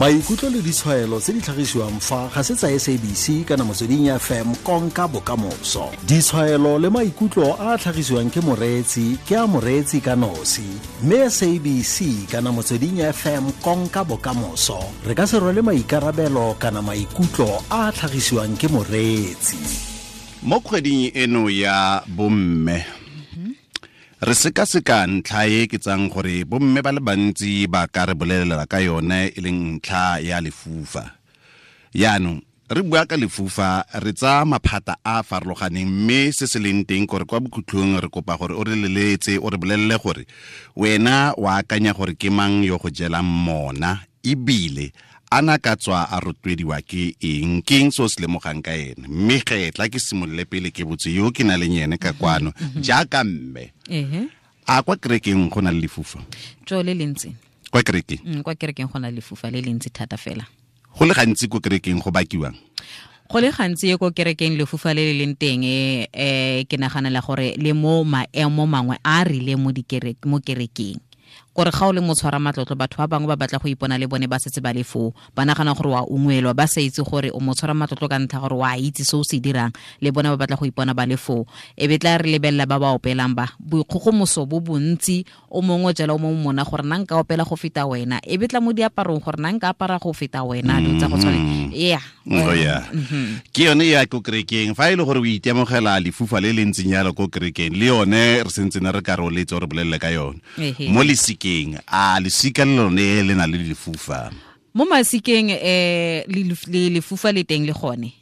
Maikutlo le ditshwaelo tse di tlhagisiwang fa ga se tsa SABC kana Motsweding FM konka bokamoso. Ditshwaelo le maikutlo a a tlhagisiwang ke moreetsi ke a moreetsi ka nosi, mme SABC kana Motsweding FM konka bokamoso re ka se rwale maikarabelo kana maikutlo a a tlhagisiwang ke moreetsi. Mo kgweding eno ya bomme re sekaseka ntlha e ke tsang gore bomme ba le bantsi ba ka re bolelela ka yone e leng ntlha ya lefufa. Yaanong re bua ka lefufa re tsaya maphata a a farologaneng, mme se se leng teng kore kwa bokhutlhong re kopa gore o re leletse o re bolelele gore wena o akanya gore ke mang yo go jelang mona, ebile ana ka tswa a rotloediwa ke eng, ke eng se o se lemogang ka ene. Mme ge tla ke simolole pele ke botse yo ke na leng ene ka kwano jaaka mme. A kwa kerekeng go na le lefufa? Tjo le lentsi. Kwa kerekeng? Kwa kerekeng go na le lefufa le lentsi thata fela. Go le gantsi ko kerekeng go bakiwang? Go le gantsi ko kerekeng lefufa le le leng teng, ke naganela gore le mo maemo mangwe a rileng mo mo kerekeng. Gore ga o le motshwara matlotlo, batho ba bangwe ba batla go ipona le bone ba setse ba le foo, ba nagana gore wa ungwelwa, ba sa itse gore o motshwara matlotlo ka ntlha gore wa itse se o se dirang, le bone ba batla go ipona ba le foo. E be tla re lebelela ba ba opelang ba boikgogomoso bo bontsi, o mongwe jalo o mongwe mona gore nna nka opela go feta wena, e be tla mo diaparong gore nna nka apara go feta wena, dilo tsa go tshwana. Yeah. Oh yeah. Ke yone ya ko kerekeng, fa e le gore o itemogela lefufa le le ntseng jalo ko kerekeng, le yone re sentse ne re ka re o letse re bolelele ka yone. Mo lesikeng, a lesika le lone le na le lefufa? Mo masikeng le lefufa le teng le gone.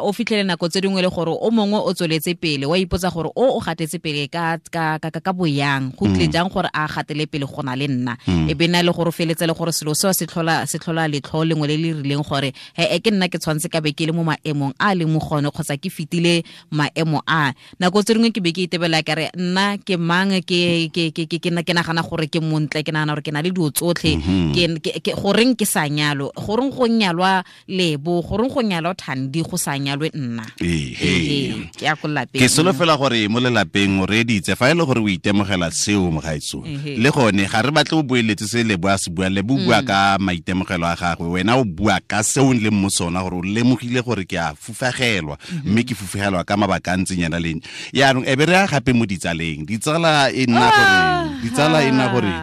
O fitlhele nako tse dingwe le gore o mongwe o tsweletse pele, wa ipotsa gore o gatetse pele ka ka ka ka boyang, go tle jang gore a gatele pele go na le nna. E be na le gore o feletse le gore selo seo se tlhola letlho lengwe le le rileng gore he ke nna ke tshwantse ka be ke le mo maemong a le mo gone kgotsa ke fitile maemo a. Nako tse dingwe ke be ke itebela ka re nna ke mang, ke ke ke ke ke nagana gore ke montle, ke nagana gore ke na le dilo tsotlhe, ke goreng ke sa nyalo, goreng go nyalwa Lebo, goreng go nyalwa Thandi, go sa nyalwe nna. Ke ya ko lapeng. Ke solofela gore mo lelapeng o reeditse, fa e le gore o itemogela seo mogaetso, le gone ga re batle o boeletse se Lebo a se buang. Lebo o bua ka maitemogelo a gagwe, wena o bua ka seo o leng mo sona, gore o lemogile gore ke a fufagelwa, mme ke fufagelwa ka mabaka a ntseng yana leng. Yaanong e be re ya gape mo ditsaleng, ditsala e nna gore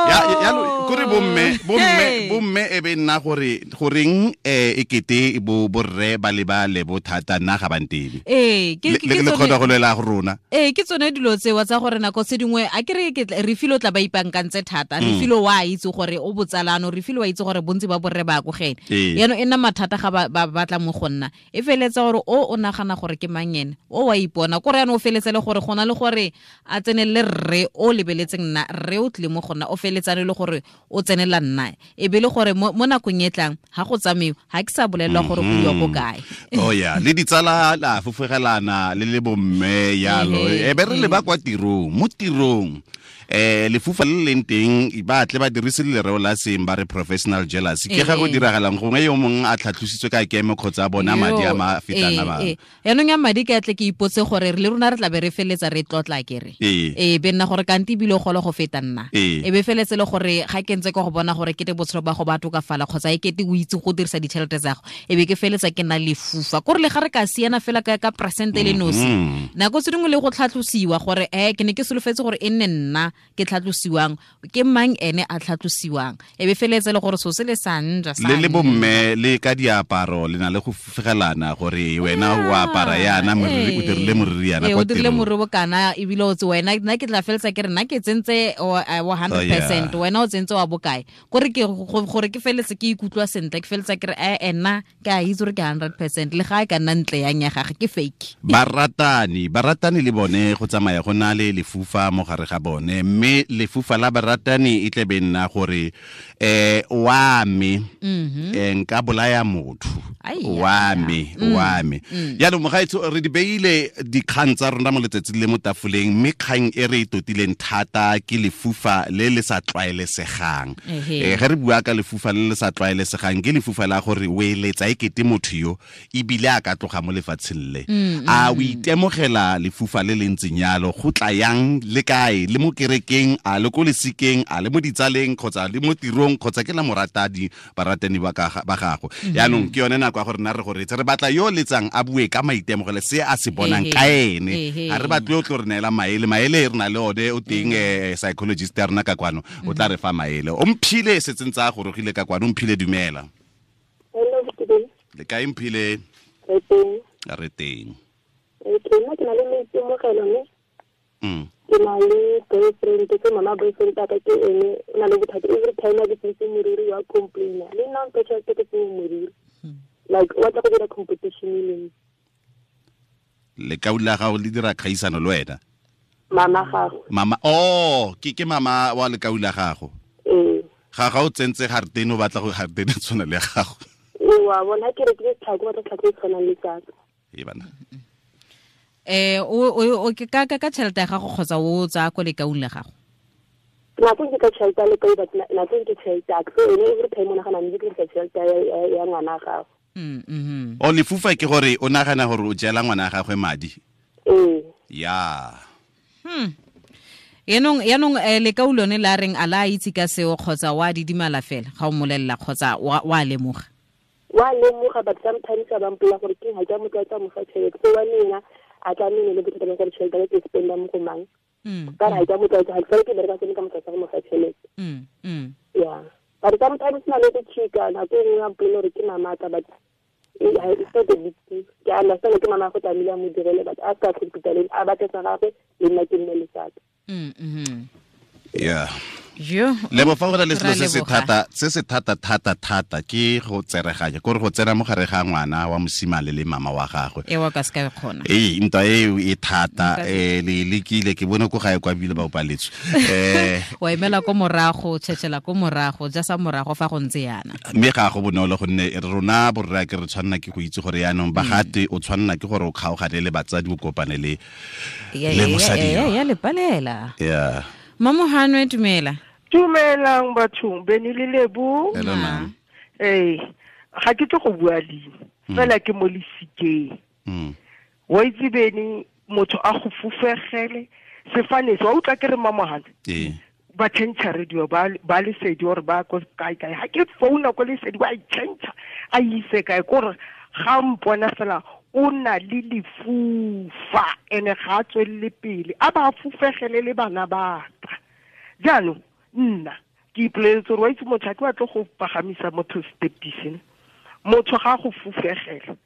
ya kore bomme e be nna gore goreng e kete bo borre ba le ba Lebo thata, nna ga ba ntebe. Ke le kgona go lwela go rona. Ke tsone dilo tsewa tsa gore nako tse dingwe a ke re Refilwe o tla ba ipankantse thata. Refilwe wa itse gore o botsalano, Refilwe wa itse gore bontsi ba borre ba ko gene. Yaanong e nna mathata ga ba batla mo go nna. E feletsa gore o nagana gore ke mang ene, o wa ipona. Kore yaanong o feletse le gore gona le gore a tsenelele rre o lebeletseng nna, rre o tlile mo go nna, o feletsane le gore o tsenela nna. E be le gore mo nakong e tlang ga go tsamaiwe, ga ke sa bolelelwa gore go iwa ko kae. Oh yeah, le ditsala la fofogelana le le bomme yalo. E be re leba kwa tirong, mo tirong lefufa le leng teng ba tle ba dirise lereo la seng ba re professional jealousy. Ke ga go diragalang gongwe yo mongwe a tlhatlositswe ka kemo kgotsa a bona madi a ma fetang a bangwe. Yaanong ya madi ke atle ke ipotse gore le rona re tla be re feletsa re tlotla kere. Be nna gore kante ebile o golo go feta nna. E be feletse le gore ga ke ntse ke go bona gore kete botshelo ba go ba tokafala kgotsa e kete o itse go dirisa ditšhelete tsa go, e be ke feletsa ke nna lefufa. Kore le ga re ka siana fela ka percent le nosi. Nako tse dingwe le go tlhatlosiwa gore ke ne ke solofetse gore e nne nna ke tlhatlosiwang, ke mang ene a tlhatlosiwang. E be feletse le gore so se le sa nja sa le bomme le ka diaparo le na le go fufugelana gore wena o apara yana moriri, o dirile moriri yana kwa o dirile moriri bokana, ebile o tse wena nna ke tla feletsa ke re nna ke tsentse wa 100%, wena o tsentse wa bokae. Gore ke gore ke feletse ke ikutlwa sentle, ke feletsa ke re nna ke a itse gore ke 100%, le ga e ka nna ntle yang ya gagwe ke fake. Baratani le bone go tsamaya go na le lefufa mo gare ga bone, mme lefufa la baratani e tle be nna gore wa me nka bolaya motho, wa me. Yaanong mogaetsho re di beile dikgang tsa rona mo letsatsing le mo tafoleng, mme kgang e re e totileng thata ke lefufa le le sa tlwaelesegang. Ge re bua ka lefufa le le sa tlwaelesegang, ke lefufa la gore o eletsa e kete motho yo ebile a ka tloga mo lefatsheng le. A o itemogela lefufa le le ntseng yalo, go tla yang le kae, le mo kerekeng, a le ko lesikeng, a le mo ditsaleng kgotsa le mo tirong kgotsa ke la moratadi baratani ba gago. Yaanong ke yone nako ya gore nna re go reetse, re batla yo letsang a bue ka maitemogelo se a se bonang ka ene. Ga re batle o tlo re neela maele, maele re na le one o teng psychologist ya rona ka kwano o tla re fa maele. O Mphile setseng tsa gorogile ka kwano. Mphile dumela. Hello, le kae Mphile? Re teng. Re teng. Ke nna ke na le maitemogelo mme ke na le boyfriend, ke mama boyfriend ka ke ene o na le bothata every time a ke tsentse moriri wa complaina le nna mphe tšhelete ke tsenye moriri, like o batla go dira competition le nna. Lekau la gago le dira kgaisano le wena? Mama gago. Mama, oh, ke mama wa lekau la gago. Ee. Ga o tsentse garetene o batla go garetene tshwana le gago. Ee, wa bona ke rekile tlhako, batla tlhako e tshwanang le tsaka. Ee bana. O ke ka tšhelete ya gago kgotsa o tsaya ko lekaung la gago? Nako ke ka tšhelete ya lekau, but nako ke tšhelete ya ka. So ene every time o nagana mme ke dirisa tšhelete ya ngwana gago. O lefufa ke gore o nagana gore o jela ngwana gagwe madi? Ee. Ya. Yaanong lekau lone la reng a la itse ka seo kgotsa wa didimala fela ga o molelela kgotsa wa lemoga? Wa lemoga, but sometimes a ba mpolela gore ke ga ke a mo tlwaetsa mo fa tšhelete. So wa nna a tla nne le bothata ba gore tšhelete ke spenda mo go mang. Ka re ga ke a mo tlwaetsa, ga ke sale ke bereka sone ka mo tlwaetsa go mo fa tšhelete. Yeah. But sometimes na le go chika, nako e nngwe a mpolela gore ke mamata, but it's not a big deal. Ke a understand ke mama go tlamehile a mo direle, but a se ka compete le a batle sa gagwe le nna ke nne le saka. Yeah. Jo. Lebo fa go na le selo se se thata thata thata ke go tsereganya, kore go tsena mo gare ga ngwana wa mosimane le mama wa gagwe. E wa ka se ka kgona. Ee, ntwa eo e thata, le lekile ke bone ko gae kwa bile ba opaletswe. Wa emela ko morago, tšhetšhela ko morago, ja sa morago fa go ntse yana. Mme ga go bonolo gonne rona borra ke re tshwanna ke go itse gore yaanong bagate o tshwanna ke gore o kgaogane le batsadi o kopane le le mosadi. Ya le palela. Yeah. Mamohanwe dumela. Dumelang bathong, Beni le Lebo. Hello ma'am. Eh, ga ke tlo go bua leina. Fela ke mo lesikeng. Wa itse Beni motho a go fufegele sefane se wa utlwa ke re Mamohanwe. Ee. Ba change radio ba lesedi gore ba ko kae kae. Ha ke founa ko lesedi wa change a ise kae gore ga mpona fela o na le lefufa ene ga a tswelele pele a ba fufegele le bana ba ka. Jaanong nna ke ipoleletse gore wa itse motho a ke batle go pagamisa motho stepise, motho ga go fufegela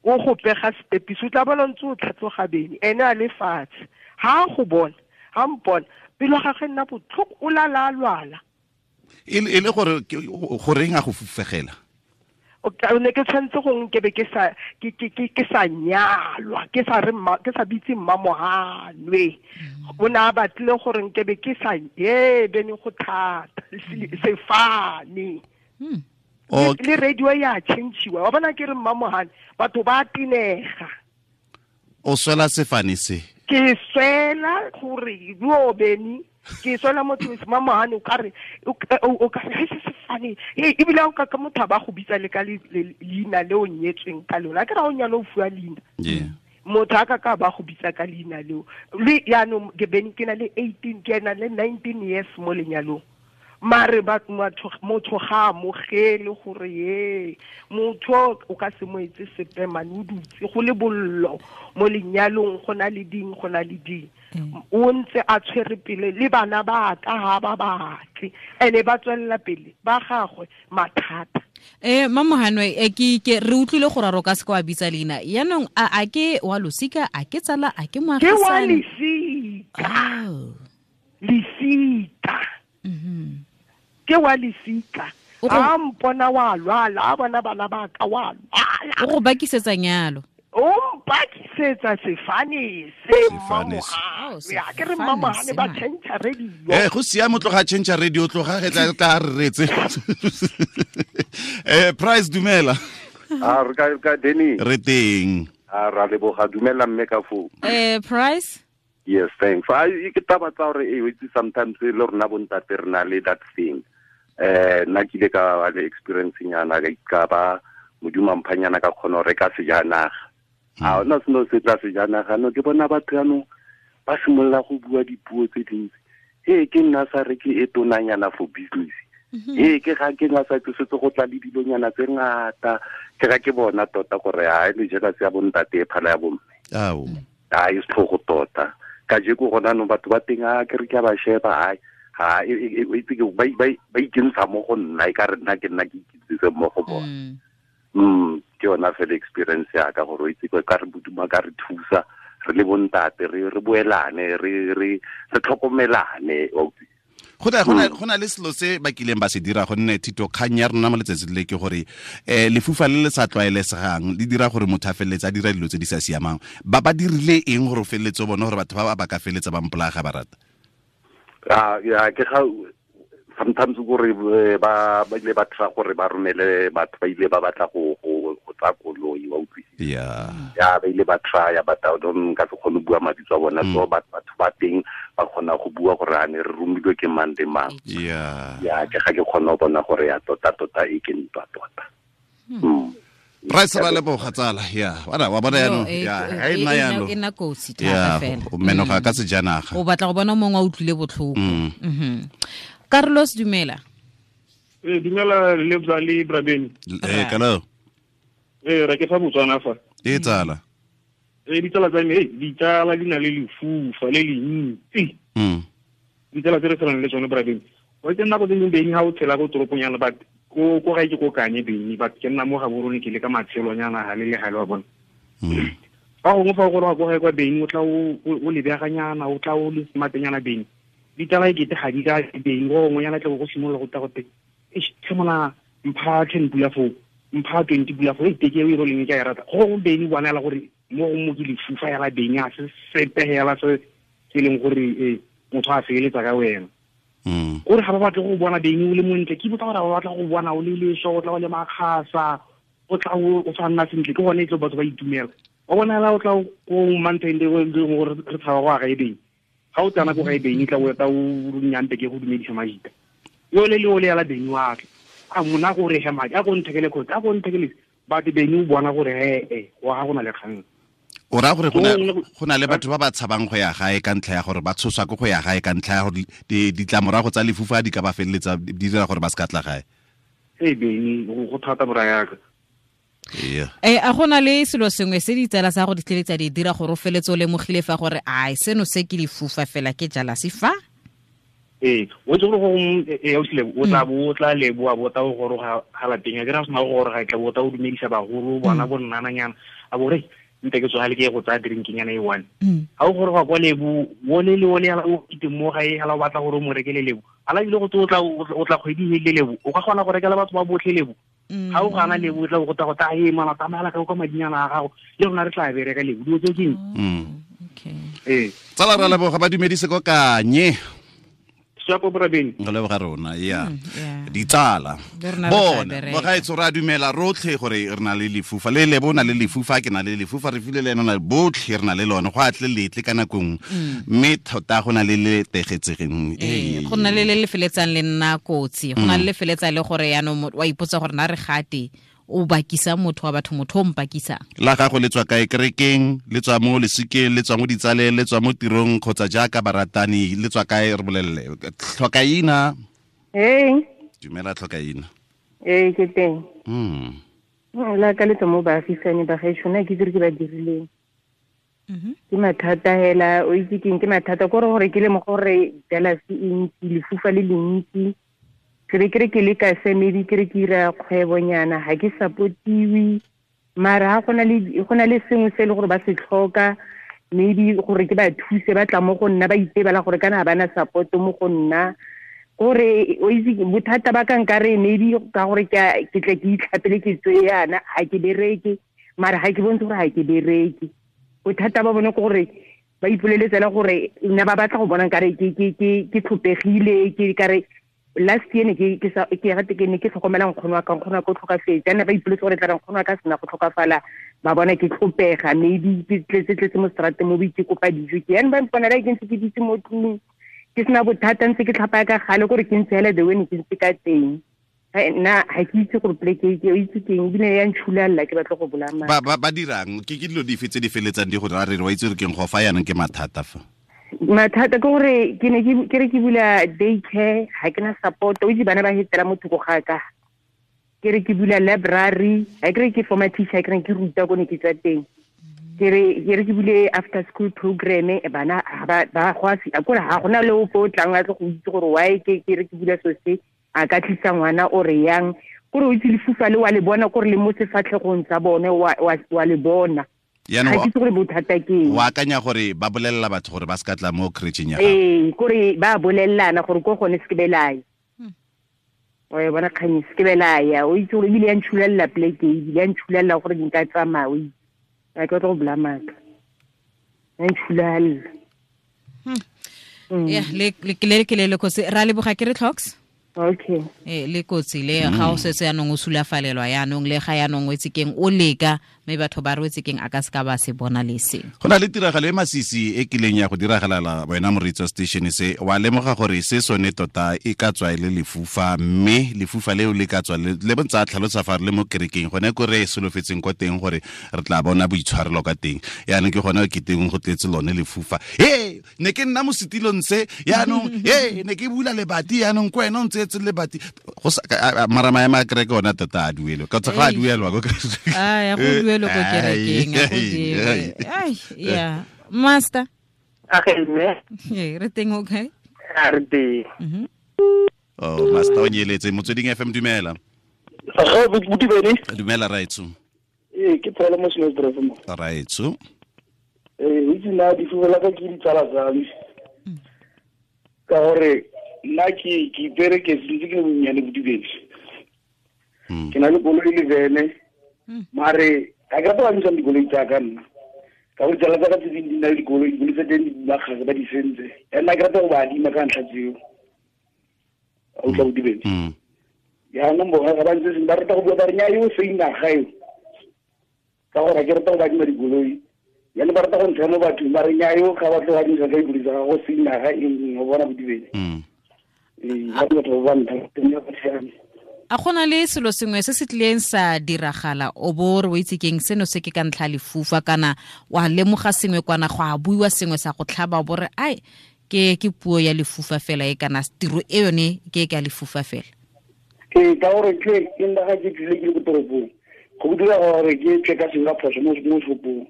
o go pega stepise o tla bona ntse o tlhatloga bene ene a le fatshe ha go bona ha mpona pelo ga gagwe nna botlhoko o lala a lwala. E le gore goreng a go fufegela? O ne ke tshwanetse go nkebe ke sa ke sa nyalwa, ke sa re ke sa bitse Mmamohanwe. O ne a batlile gore nkebe ke sa ye bene go thata sefane. Le radio ya change-iwa wa bona ke re Mmamohanwe batho ba tenega. O swela sefane se? Ke swela gore yo bene ke swela motho Mmamohanwe o ka re o ka re se sefane ebile o ka ka motho ba go bitsa le ka leina le o nyetsweng ka lona ke ra o nyalo o fuwa leina. Motho a ka ba go bitsa ka leina leo le yaanong ke bene ke na le 18 ke na le 19 years mo lenyalong. Mare ba motho ga amogele gore ye motho o ka se mo etse sepe mane o dutse go le bollo mo lenyalong go na le ding go na le ding. O ntse a tshwere pele le bana ba ka ha ba batle ene ba tswelela pele ba gagwe mathata. Mamohanwe ke re utlwile gore ro ka se kwa bitsa leina yaanong a ke wa losika a ke tsala a ke moagisane? Ke wa lesika. Lesika. Ke wa lesika. A mpona wa lwala a bona bana ba ka wa lwala. O go bakisetsa nyalo. O mpakisetsa sefane se Mmamohanwe. Ya ke re Mmamohanwe ba change radio. Go siame tloga change radio tloga re tla re retse. Price dumela. A re ka Denny. Re teng. A ra leboga dumela mme ka fo. Price. Yes, thanks. I ke taba tsa gore e itse sometimes le rona bontate re na le that thing. Nna ke ile ka ba le experience nyana ka ba modimo mphanyana ka kgona go reka sejanaga. A ona seno se tla sejanaga no ke bona batho yanong ba simolola go bua dipuo tse dintsi. He ke nna sa re ke e tonanyana for business. He ke ga ke nga sa tsosetse go tla le dilonyana tse ngata. Ke ga ke bona tota gore ha le jealousy ya bontate e phala ya bomme. Ao. A e setlhogo tota. Ka je go gona no batho ba teng a ke re ke ba sheba ha ha e itse ke ba ba ikentsha mo go nna e ka re nna ke nna ke ikitsitse mo go bona. Ke yona fela experience ya ka gore o itse ka re boduma ka re thusa re le bontate re boelane re tlhokomelane. Go na le selo se ba kileng ba se dira gonne thito kgang ya rona mo letsatsing le ke gore lefufa le le sa tlwaelesegang le dira gore motho a feleletse a dira dilo tse di sa siamang. Ba ba dirile eng gore o feleletse o bone gore batho ba ba ka feletsa ba mpolaya ga ba rata? Ya ke ga sometimes gore ba ile ba tla gore ba romele batho ba ile ba batla go tsa koloi wa utlwisisa. Ya ba ile ba try but I don't ka se kgone bua mabitso a bona, so batho ba teng ba kgona go bua gore a ne re romilwe ke mang le mang. Ya ke ga ke kgona go bona gore ya tota tota e ke ntwa tota. Price ba leboga tsala ya wa bona yano ya ha e nna yano e nna kotsi thata fela o menoga ka sejanaga o batla go bona mongwe a utlwile botlhoko. Carlos dumela. Dumela Lebza le Brabeni. Hello. Re ke fa Botswana fa. Tsala. Ditsala tsa me, ditsala di na le lefufa le le ntsi. Ditsala tse re tshelang le tsone Brabeni. Wa itse nako tse dingwe beng ha o tshela ko toropong yana but ko gae ke ko Kanye beng but ke nna mo Gaborone ke le ka matshelonyana ga le le gale wa bona. Fa gongwe fa o goroga ko gae kwa beng o tla o lebeganyana o tla o le smartnyana beng. Ditaba e kete ga di ka beng go gongwenyana tle go simolola go tla gote tlhemola mpha 10 pula foo mpha 20 pula foo e teke e roleng ke a e rata go gongwe beng bona ela gore mo go mo ke lefufa yala beng a se sepe hela se se leng gore motho a feletsa ka wena. Gore ga ba batle go bona beng o le montle ke botsa gore ba batla go bona o le leso o tla o le makgasa o tla o sa nna sentle ke gone e tlo batho ba itumela wa bona ela o tla ko mountain le gore re tshaba go aga e beng ga o tsana ko gae beng tla o eta o nyampe ke go dumedisa majita yo le le o le yala beng wa tla a mona go re he madi a go nthekele khotsa a go nthekele batho beng o bona gore he wa ga gona le kgang. O ra gore go na le batho ba ba tshabang go ya gae ka ntlha ya gore ba tshoswa ke go ya gae ka ntlha ya gore ditlamorago tsa lefufa di ka ba feleletsa di dira gore ba se ka tla gae. Beng go thata bora yaka. A gona le selo sengwe se ditsala sa go di tleletsa di dira gore o feletse o lemogile fa gore ai seno se ke lefufa fela ke jealousy fa? O itse gore go o tla bo o tla leboa bo tla o goroga ga lapeng a ke ra sena go goroga tla bo tla o dumedisa bagolo bona bo nnananyana a bo re nte ke tsogale ke go tsaya drinkinyana e one. Ga o goroga kwa lebo o le le o le o kite mo gae hala o batla gore o mo rekele lebo ala ile go tlo o tla kgwedi e le lebo o ka kgona go rekela batho ba botlhe lebo. Ga o gana lebo o tla go ta go ta e mana tsamaya ka kwa madinyana a gago le rona re tla bereka lebo dilo tse keng. Okay. Tsala ra leboga ba dumedise ko Kanye. Shapo Brabeni. Re leboga rona ya. Ditsala. Bona ba ga itse ra dumela rotlhe gore re na le lefufa le le bona le lefufa ke na le lefufa re file le ena botlhe re na le lone go atle letle ka nakong mme thota go na le le tegetsegeng. Go na le le feletsang le nna kotsi go na le feletsa le gore yaanong wa ipotsa gore na re gate o bakisa motho wa batho motho o mpakisa. La gago le tswa kae kerekeng le tswa mo lesikeng le tswa mo ditsaleng le tswa mo tirong kgotsa jaaka baratani le tswa kae re bolelele. Tlhokaina. Dumela Tlhokaina. Ke teng. La ka le tswa mo baagisane ba gaetsho nna ke dire ke ba dirileng. Ke mathata hela o itse keng ke mathata kore gore ke le mo gore jealousy e ntsi lefufa le le ntsi. Ke re ke le ka se maybe ke re ke ira kgwebonyana ga ke supportiwe mara ga go na le sengwe se e le gore ba se tlhoka maybe gore ke ba thuse ba tla mo go nna ba itebela gore kana ga bana support mo go nna gore o itse bothata ba ka nkare maybe ka gore ke tle ke itlhapele ke tswe yana ga ke bereke mara ga ke bontshe gore ga ke bereke bothata ba bone ke gore ba ipoleletsela gore nna ba batla go bona nkare ke tlhopegile ke kare last year ne ke ke ne ke tlhokomela nkgono wa ka nkgono wa ka o tlhokafetse ana ba ipoletse gore tla re nkgono wa ka sena go tlhokafala ba bona ke tlhopega maybe ke tletse mo strateng mo ke kopa dijo ke yana ba mponela ke ntse ke ditse mo tlung ke sena bothata ntse ke tlhapa ka gale gore ke ntse hela the way ne ke ntse ka teng nna ga ke itse gore pleke ke o itse keng ebile ya ntšhulalla ke batla go bolaya ba dirang ke dilo dife tse di feletsang di go ra re wa itse gore keng go fa yanong ke mathata fa. Mathata ke gore ke ne ke re ke bula daycare, ga ke na support, o itse bana ba hetela mo thoko ga ka. Ke re ke bula library, ga ke re ke former teacher, ke re ke ruta ko ne ke tswa teng. Ke re ke bule after school program, bana ba go a kore ga gona le ope o tlang a tle go itse gore why ke re ke bula so se, a ka tlisa ngwana o re yang. Kore o itse lefufa le wa le bona, kore le mo sefatlhegong sa bone wa le bona. Ga ke itse gore bothata ke eng. O akanya gore ba bolelela batho gore ba se ka tla mo creche-eng ya gago? Ee, kore ba bolelelana gore ko gone se ke belaya. O e bona kgang se ke belaya, o itse gore ebile ya ntšhulelela pleke, ebile ya ntšhulelela gore nka tsamaya, o itse. Ga ke batla go bula maaka. Ya ntšhulelela. Ya, le ke le kotsi. Ra leboga ke re Tlhoks. Okay. Le kotsi le ga o setse yanong o sulafalelwa yanong le ga yanong o itse keng o leka mme batho ba re keng a ka se ka ba se bona le se. Go na le tiragalo e masisi e kileng ya go diragalela wena moreetsi wa station se, wa lemoga gore se sone tota e ka tswa e le lefufa, mme lefufa leo le ka tswa le bontsa tlhalosa fa re le mo kerekeng gone ko re solofetseng kwa teng gore re tla bona boitshwarelo ka teng. Yaanong ke gone ke teng go tletse lone lefufa. He, ne ke nna mo setilong se, yaanong he, ne ke bula lebati yaanong ko wena o ntse le bati go mara maemo a kereke ona tota a duelwe ka tsa ga a duelwa ko a ya go duelwe ko kerekeng a go duelwe. Ai ya master a ge mme re teng okay a re teng. Oh master o nyeletse Motsweding FM dumela. Ga buti bene dumela raitso. Ee ke phela mo Snowdrift mo raitso. Ee itse na di fuela ka ke ditsala tsa me ka gore nna ke ipere ke sentse ke le bonnyane bodibedi. Ke na le koloi le vene, mare ga ke rata ba ntshang dikoloi tsa ka nna. Ka gore tsala tsa ka tse dingwe di na le dikoloi, dikoloi tsa teng di bakgase ba di sentse. And nna ke rata go ba adima ka ntlha tseo. A utlwa bodibedi. Jaanong bona ga ba ntse seng ba rata go bua ba re nnyaa eo seina ga eo. Ka gore ga ke rata go ba adima dikoloi. Jaanong ba rata go ntsha mo bathong ba re nnyaa eo ga ba tlo go adimisa ka dikoloi tsa gago seina ga eng o bona bodibedi. A gona le selo sengwe se se tlileng sa diragala o bo re o itse keng seno se ke ka ntlha lefufa kana wa lemoga sengwe kwana go a buiwa sengwe sa go tlhaba o bo re ai ke puo ya lefufa fela e kana tiro e yone ke ka lefufa fela. Ee ka gore ke nna ga ke tlile ke le ko toropong go dira gore ke tle ka sengwe ka phoso mo shopong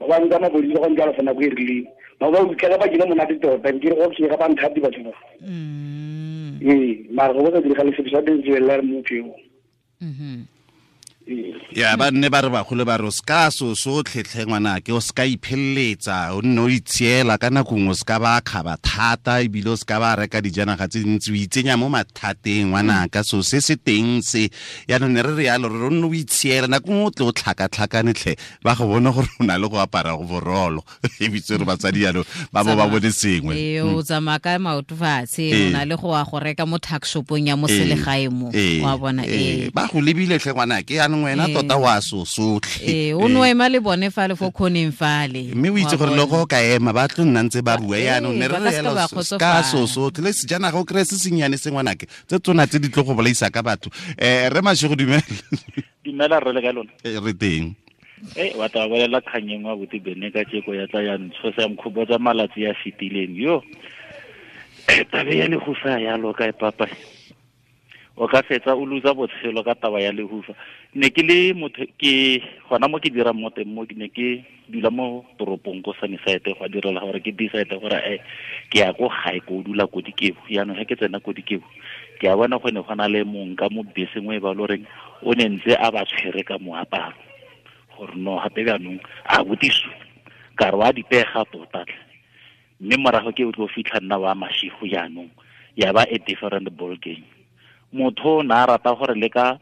ba ba nka mapodisi ba go ntlala fa nako e rileng ba ba utlwa ka ba kile monate tota ke re go ke ga ba nthati batho ba. Ee mara go sa diragale sepe sa teng tswelela re motho eo. Ya ba nne ba re bagolo ba re o ska so sotlhe ngwanake o ska ipheletsa o nne o itshiela ka nako nngwe o ska ba kgaba thata ebile o ska ba reka dijanaga tse dintsi o itsenya mo mathateng ngwanaka so se se teng se yaanong ne re re yalo re o nne o itshiela nako nngwe o tle o tlhakatlhakane tlhe ba go bona gore o na le go apara go borolo ebitse re batsadi yalo ba bo ba bone sengwe. Ee o tsamaya ka maoto fatshe o na le go ya go reka mo tuck shopong ya mo selegae mo wa bona ee ba go lebile tlhe ngwanake wena tota wa so sotlhe. Ee o no ema le bone fale fo khoneng fale mme o itse gore le go ka ema ba tlo nna ntse ba bua yaanong ne re re yalo ka so sotlhe le sejanaga o kry-e se sennyane se ngwanake tse tsona tse di tlo go bolaisa ka batho. Re Mashego dumela. Dumela rre le ka lona. Re teng. Wa tla bolela kgang engwe abuti bene ka tjeko ya tla ya ntshosa ya mkhobotsa malatsi ya fetileng yo. Tabe ya lehufa ya loka e papa. O ka fetsa o losa botshelo ka taba ya lehufa. Ne ke le motho ke gona mo ke dirang mo teng mo ke ne ke dula mo toropong ko Sunnyside go direla gore ke decide gore ke ya ko gae ko dula ko Dikebo. Jaanong ge ke tsena ko Dikebo ke a bona go ne go na le mong ka mo beseng o e ba loreng o ne ntse a ba tshwere ka moaparo gore no gape jaanong a botiso ka re wa dipega tota tlhe. Mme morago ke o tlo fitlha nna wa mashigo jaanong ya ba a different ball game. Motho o ne a rata gore le ka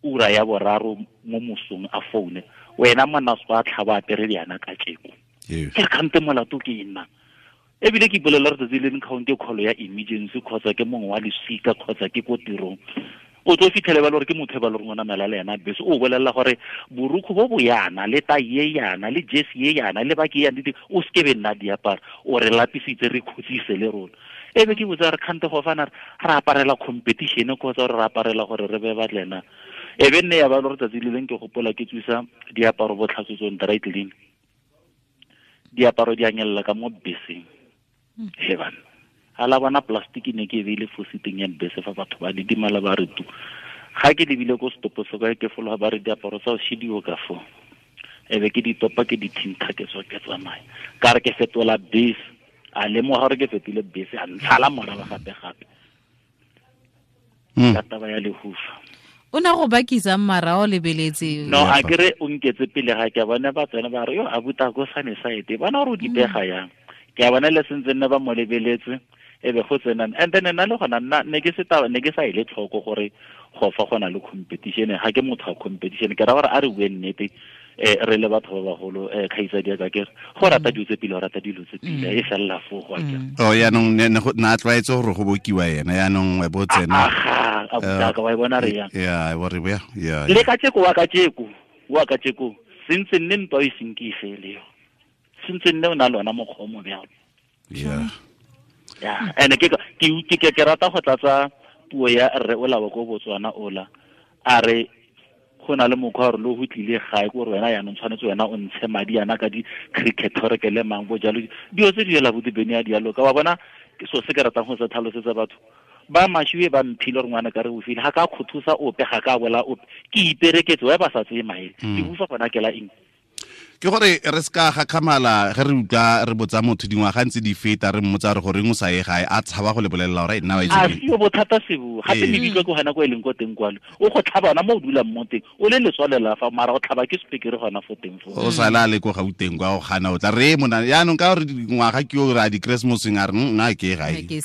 ura ya boraro mo mosong a foune wena monna se a tlhaba apere diana ka tjeko. Ke re kgante molato ke nna ebile ke ipolelela re tsatsi le leng kgaonte call ya emergency kgotsa ke mongwe wa lesika kgotsa ke ko tirong o tlo fitlhele ba le gore ke motho e ba le gore o namela le ena bese o bolelela gore borukgo bo bo yana le tai e yana le jersey e yana le baki yana o seke be nna diaparo o re lapisitse re khutsise le rona. Ebe ke botsa re kgante go fana re aparela competition kgotsa re aparela gore re be batlena. Ebe nne ya ba le gore tsatsi le leng ke gopola ke tswisa diaparo botlhatswetsong dry clean diaparo di anyelela ka mo beseng. He bana ala bona plastic ne ke beile fo siteng ya bese fa batho ba didimala ba re tu ga ke lebile ko stopo se ka ke fologa ba re diaparo tsa o shidiwo ka fo ebe ke di topa ke di thintha ke tswa ke tsamaya ka re ke fetola bese a lemoga gore ke fetile bese a ntshala morago gape gape ka taba ya lehufa o na go bakisa mara o lebeletse no a kere o nketse pele ga ke bona ba tsena ba re yo a buta go sane side bona gore o dipega yang ke a bona le sentse nne ba mo lebeletse e be go tsenang and then nna le gona nna ne ke se taba ne ke sa ile tlhoko gore go fa gona le competition ga ke motho wa competition ke ra gore a re bue nnete re le batho ba bagolo kgaitsadi ka ke go rata dilo tse pele o rata dilo tse pele e felela fo go akere oh yaanong na tlwaetse gore go bokiwa ena yaanong bo tsena a botaka wa e bona re yang ya bo re ya ya le ka tsheko wa ka tsheko sentse nne ntwa e seng ke e fele yo sentse nne o na le ona mokgwa o mo bjalo yeah yeah and ke ke rata go tlatsa puo ya rre o lawa ko Botswana ola a re go na le mokgwa gore le go tlile gae ko gore wena yaanong tshwanetse wena o ntshe madi yana ka di-cricket gore ke le mang bo jalo dilo tse di ela bodibene ya dialo ka wa bona ke so se ke ratang go se tlhalosetsa batho ba mashiwe ba mphile gore ngwana ka re o file ga ka khothusa ope ga ka bola ope ke ipereketse wa ba sa tseye maele ke bufa gona ke la eng ke gore re ska ga khamala ge re utlwa re botsa motho dingwaga ntse di feta re mmotsa re gore o sa ye gae a tshaba go le bolelela gore nna wa itse a sio bothata sebo gape mebitlo ke gona ko e leng ko teng kwalo o go tlhaba ona mo o dulang mo teng o le letswalela fa mara go tlhaba ke sepekere gona fo teng fo o sala le ko Gauteng kwa o gana o tla re mona yaanong ka gore dingwaga ke o re a di-Christmaseng a re nna ke gae ge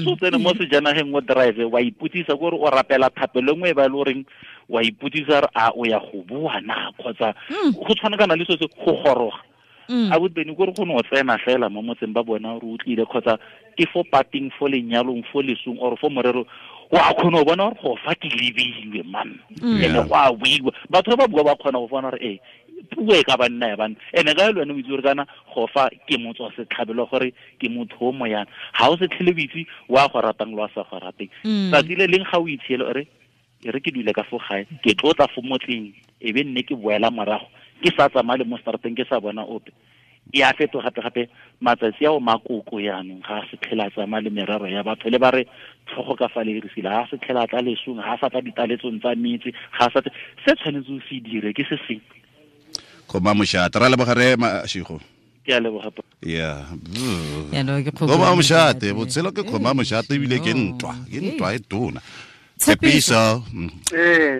o tsene mo sejanageng o drive wa ipotsisa kore o rapela thapelo nngwe e ba e le goreng wa ipotsisa a o ya go bua na kgotsa go tshwana kana le se go goroga a botbeni gore go no tsena fela mo motseng ba bona gore o tlile kgotsa ke fo pating fo lenyalong fo lesong or fo morero wa kgona go bona gore go fa ke lebilwe man ene go a buiwa batho ba bua ba kgona go bona gore ee puo e ka ba nna ya bana ene ka le wena o itse gore kana go fa ke motswa setlhabelo gore ke motho o moyana ga o se tlhele o itse wa go ratang le wa sa go rateng tsatsi le leng ga o itshiele ore e re ke dule ka fo gae ke tlotla fo motleng e be nne ke boela morago ke sa tsamaya le mo strateng ke sa bona ope e a fetoga gape-gape matsatsi ao makoko yaanong ga a se tlhela tsamaya le merero ya batho le ba re tlhogo ka fa le irisile ga a se tlhela tla lesong ga a sa tla ditaletsong tsa metse ga a sa se tshwanetse o se dire ke se sengwe kgoma mošate ra leboga re Mashigo ke a leboga yeah kgoma mošate botshelo ke kgoma mošate ebile ke ntwa e tona Tshepiso.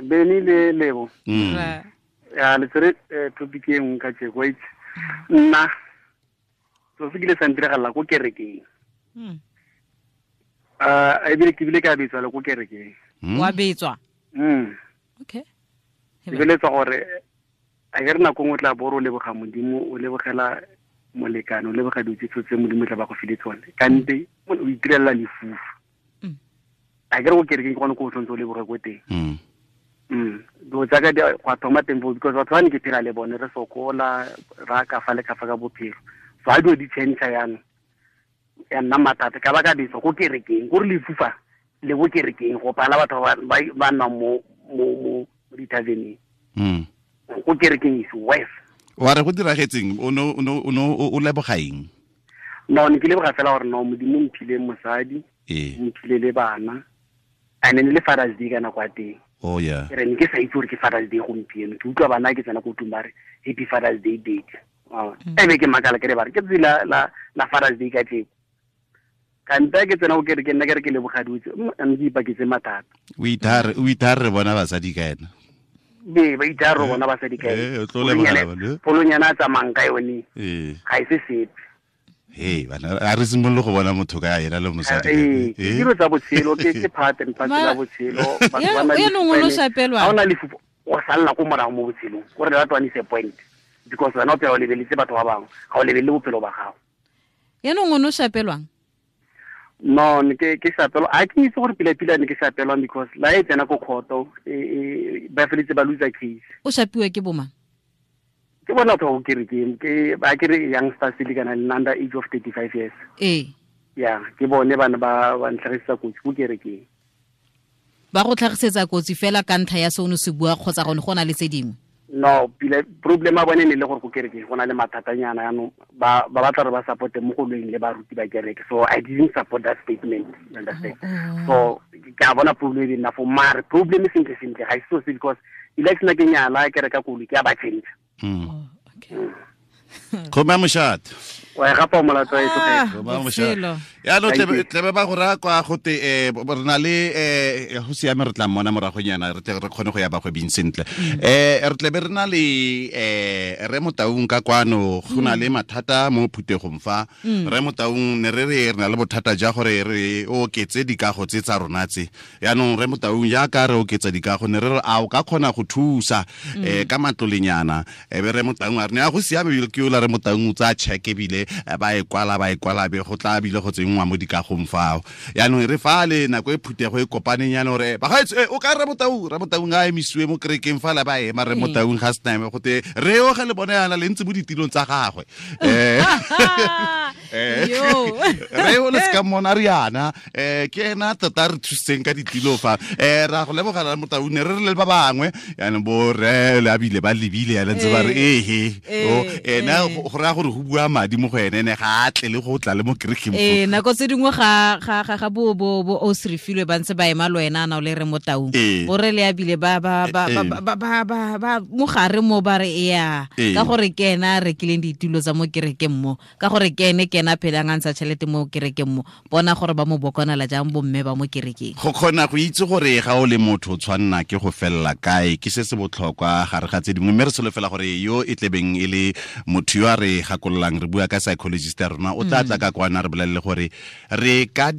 Beni le Lebo. Ya le tsere topic e nngwe ka tjeko itse. Nna so se kile sa ntiragalla ko kerekeng. Ebile ke bile ka betswa le ko kerekeng. Wa betswa? Okay. Ke beletsa gore a ke re nako nngwe tla boro o leboga Modimo o lebogela molekane o leboga dilo tse tse Modimo tla ba go file tsone. Kante o itirela lefufa. A ke re go kerekeng ke gone ko o tshwanetse o leboge ko teng. Dilo tsaka di go thoma teng foo because batho ba ne ke phela le bone re sokola ra ka fa le ka fa ka bophelo. So ha dilo di change yana ya nna mathata ka ba ka betsa ko kerekeng gore lefufa le bo kerekeng go pala batho ba nnang mo mo di-taveneng. Ko kerekeng is worse. Wa re go diragetseng o no o leboga eng? No ne ke leboga fela gore no Modimo mphile mosadi mphile le bana. And then le Father's Day ka nako ya teng. Oh yeah. Ke re ne ke sa itse gore ke Father's Day gompieno. Ke utlwa bana ke tsena ko tlung ba re happy Father's Day date. Ebe ke makala ke re ba re ke tsatsi la Father's Day ka tleko. Kante ke tsena go kerekeng nna ke re ke leboga dutse mme ke ipaketse mathata. O ithare re bona basadi ka ena. Be ba ithare re bona basadi ka ena. Polonyana a tsamayang ka yone. Ga e se sepe. Hey, bana a re simolole go bona motho ka ena le mosadi. Ke dilo tsa botshelo ke part and parcel ya botshelo. Batho ba na le ha ona lefufa o salla ko morago mo botshelong. Gore that one is a point because wena o phela o lebeletse batho ba bangwe ga o lebelele bophelo ba gago. Yaanong o ne o shapelwang? No, ne ke shapelwa. A ke itse gore pila-pila ne ke shapelwang because la e tsena ko kgoto ba feletse ba loser case. O shapiwa ke bomang? Ke bona batho ba ko kerekeng ke ba ke re youngsters le kana le under age of 35 years. Yeah, ke bone bana ba ntlhagisetsa kotsi ko kerekeng. Ba go tlhagisetsa kotsi fela ka ntlha ya se o ne se bua kgotsa gone go na le tse dingwe? No, pile problem a bone ne le gore go kereke go na le mathatanyana yaanong ba batla re ba support mo go lweng le baruti ba kereke. So I didn't support that statement, you understand? So ke a bona problem e nna for mare problem sentle sentle ga se so because election ke nyala ke reka koloi ke a ba change. Okay. Kgoma moshate. Wa e gapa molato e tloge. Kgoma moshate. Ya no tlebe ba go ra kwa gote re na le go siame re tla mmona moragonyana re tle re kgone go ya bagwebing sentle. Re tlebe re na le re Motaung ka kwano go na le mathata mo phutegong fa. Re Motaung ne re re na le bothata ja gore re oketse dikago tse tsa rona tse. Yaanong re Motaung ya ka re oketsa dikago ne re re a o ka kgona go thusa ka matlolenyana. Be re Motaung a re ne a go siame ke ola re Motaung o tsaya check ebile ba e kwala be go tla bile go tsenngwa mo dikagong fao. Yaanong re fa le nako e phuthego e kopaneng yana gore bagaetsho o ka re Motaung a emisiwe mo kerekeng fa la ba ema re Motaung ga sena go te re oge le bone yana le ntse mo ditilong tsa gagwe. Re o le ska mona re yana ke ena tota re thusitseng ka ditilo fa ra go lebogela Motaung ne re re le ba bangwe yaanong bo re le abile ba lebile yana ntse ba re ehe o ena go raya gore go bua madi mo go ene ne ga a tle le go tla le mo kerekeng. Nako tse dingwe ga bo o se refilwe ba ntse ba ema le wena na o le re Motaung bo re le abile ba ba ba ba ba mo gare mo ba re ya ka gore ke ena a rekileng ditulo tsa mo kerekeng mo ka gore ke ene ke ena phelang a ntsha tšhelete mo kerekeng mo bona gore ba mo bokonela jang bomme ba mo kerekeng. Go kgona go itse gore ga o le motho o tshwanna ke go felela kae ke se se botlhokwa gare ga tse dingwe mme re solofela gore yo e tlebeng e le motho yo a re gakololang re bua ka psychologist ya rona o tla tla ka kwana re bolelele gore re ka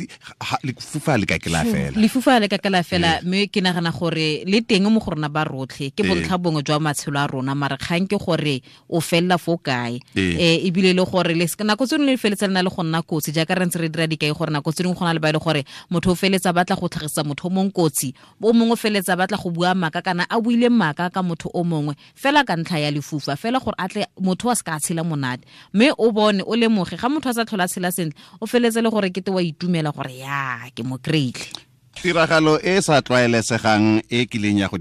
lefufa le ka ke la fela. Lefufa le ka ke la fela mme ke nagana gore le teng mo go rona ba rotlhe ke bontlha bongwe jwa matshelo a rona mare kgang ke gore o felela fo kae ebile le gore le nako tse dingwe le feletsa le na le go nna kotsi jaaka re ntse re dira dikai gore nako tse dingwe go na le ba e le gore motho o feletsa batla go tlhagisa motho o mongwe kotsi o mongwe o feletsa batla go bua maaka kana a buile maaka ka motho o mongwe fela ka ntlha ya lefufa fela gore a tle motho a se ka tshela monate mme o bone o lemoge ga motho a sa tlhola tshela sentle o feletse le gore kete wa itumela gore ya ke mo kry-ile. Tiragalo e sa tlwaelesegang e kileng ya go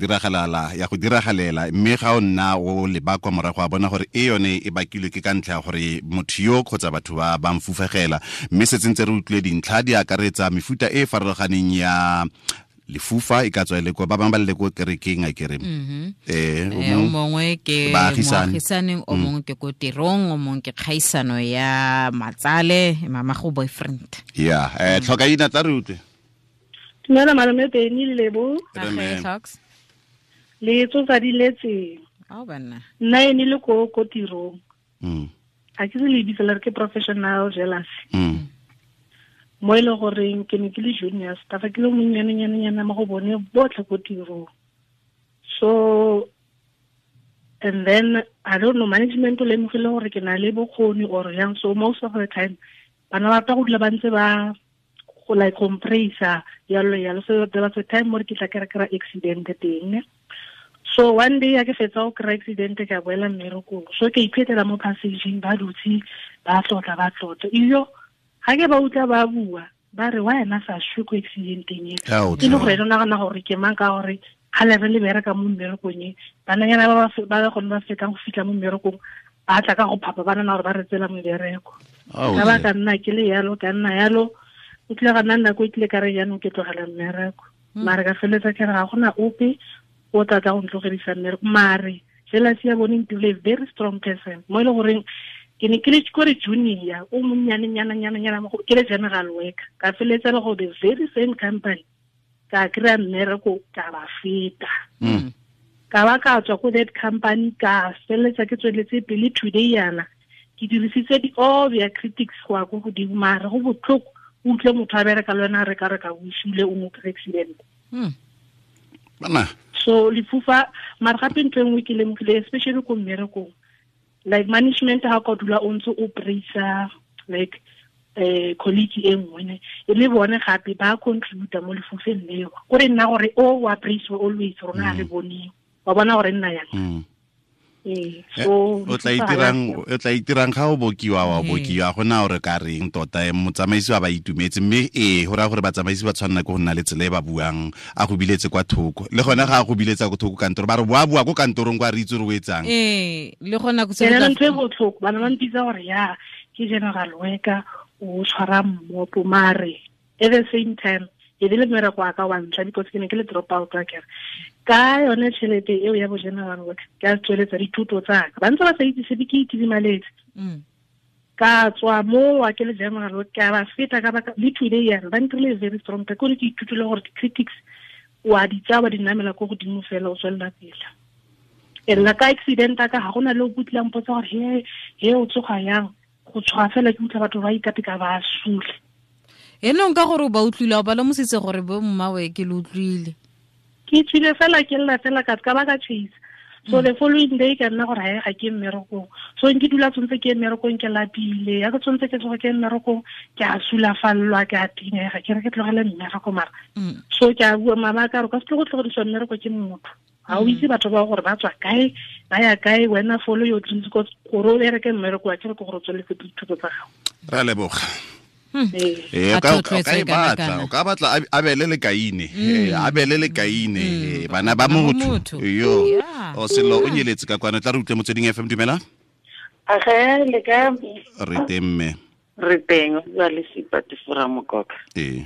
diragalela mme ga o nna o leba kwa morago a bona gore e yone e bakilwe ke ka ntlha ya gore motho yo kgotsa batho ba ba mfufegela mme setse ntse re utlwile dintlha di akaretsa mefuta e farologaneng ya lefufa e ka tswa le kwa ba bangwe ba le ko kerekeng a kere o mongwe ke moagisaneng o mongwe ke ko tirong o mongwe ke kgaisano ya matsale mama go boyfriend ya tlhoka ina tla re utlwe. Dumela malome Benny le Lebo. Le tsotsa di letse. Ao banna. Nna ene le ko tirong. A ke se le bitsa le re ke professional jealousy. Mo e le goreng ke ne ke le junior staff ke le monnyane mo go bone botlhe ko tirong. So and then I don't know management o lemogile gore ke na le bokgoni or yang so most of the time bana ba rata go dula ba ntse ba go like compressor yalo so there was a time mo ke tla kry accident teng. So one day a ke fetsa go kry accident ka boela mmerekong so ke iphetela mo passageng ba dutse ba tlotla iyo ga ke ba utlwa ba bua ba re wa ena sa shwe ko accidenteng e ke le gore nagana gore ke mang ka gore ga le re le bereka mo mmerekong e bananyana ba ba gone ba fetang go fitlha mo mmerekong ba tla ka go phapa ba nana gore ba re tsela mebereko ka ba ka nna ke le yalo ka nna yalo o tlile ga nna nako e tlile ka re jaanong ke tlogela mmereko mare ka feletsa ke re ga gona ope o tla tla go ntlogedisa mmereko mare jealousy ya bone ntirile very strong person mo e le goreng ke ne ke le kore junior o monnyane nyana ke le general worker ka feletsa le go the very same company ka kry-a mmereko ka ba feta ka ba ka tswa ko that company ka feletsa ke tsweletse pele today yana ke dirisitse all their critics go ya ko godimo mare go botlhoko o utlwe motho a bereka le wena a reka reka o sule o mo accident. Bana so lefufa mare gape ntho e nngwe ke lemogile especially ko mmerekong like management ha ka dula o ntse o praisa like colleague e nngwe ne e le bone gape ba contributa mo lefufeng leo kore nna gore o wa praise always rona re bone wa bona gore nna yang. Ee, so O tla itirang ga o bokiwa wa bokiwa gona o re ka reng tota motsamaisi wa ba itumetse mme ee go raya gore batsamaisi ba tshwanela ke go nna le tsela e ba buang a go biletse kwa thoko le gone ga a go biletsa ko thoko kantoro ba re boa bua ko kantorong kwa re itse gore o etsang. Ee, le gona go tsena ntho e botlhoko bana ba mpitsa gore ya ke general worker o tshwara mmopo mare at the same time e le mmereko wa ka wa ntlha because ke ne ke le drop out wa kere ka yone tšhelete eo ya bo general work ke a tsweletsa dithuto tsaka ba ntse ba sa itse sepe ke itidimaletse ka tswa mo wa ke le general work ka ba feta ka baka le today yana ba ntirile very strong ka kore ke ithutile gore di-critics wa di tsaya wa di namela ko godimo fela o tswelela pele. E nna ka accident ka ga gona le o kutlang potsa gore he o tsoga yang go tshoga fela ke utlwa batho ba ikateka ba sule. Enong ka gore ba utlwile o ba lemositse gore bo mmawe ke le utlwile. Ke tswile fela ke lla fela ka ba ka chase. So the following day ka nna gore ga ke mmerekong. So nke dula tshwantse ke mmerekong ke lapile. Ya ke tshwantse ke tsoga ke mmerekong ke a sulafallwa ke a tinega ke re ke tlogele mmereko mara. So ke a bua mama ka re ka se tlo go tlogediswa mmereko ke motho. Ga o itse batho ba gore ba tswa kae ba ya kae wena follow your dreams gore o bereke mmereko wa ke re ke gore o tsweletse dithuto tsa gago. Ra leboga. O ka batla abele le kaine abele le kaine bana ba motho yo o selo o nyeletse ka kwana tla re utlwe Motsweding FM. Dumela. Age le ka re teng mme re teng ba le Sipati fora mokoka. Ee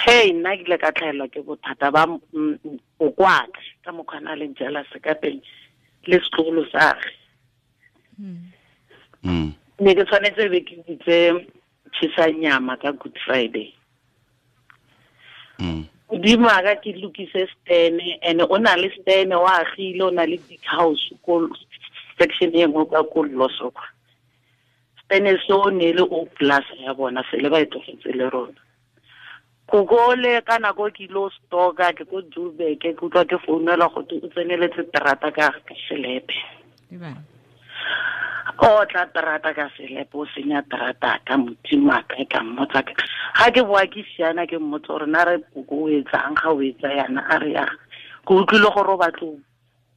hey nna ke ile ka tlhaelwa ke bothata ba o kwaka ka mokgwa le jealous ka teng le setlogolo sa gagwe. Ne ke tshwanetse be ke bitse tshisa nyama ka Good Friday. Modimo a ka ke lokise stene and o na le stene wa agile o na le big house ko section e nngwe ka ko Loso kwa. Stene seo ne le o plus ya bona sele ba e tlogetse le rona. Koko le ka nako ke ilo stoka ke ko Joburg ke utlwa ke founela go o tseneletse terata ka selepe. O tla terata ka selepe o senya terata ka modimo a ka ka mmotsa ga ke boa ke siana ke mmotsa gore na re koko o etsang ga o etsa yana a re ya ke utlwile gore o batlo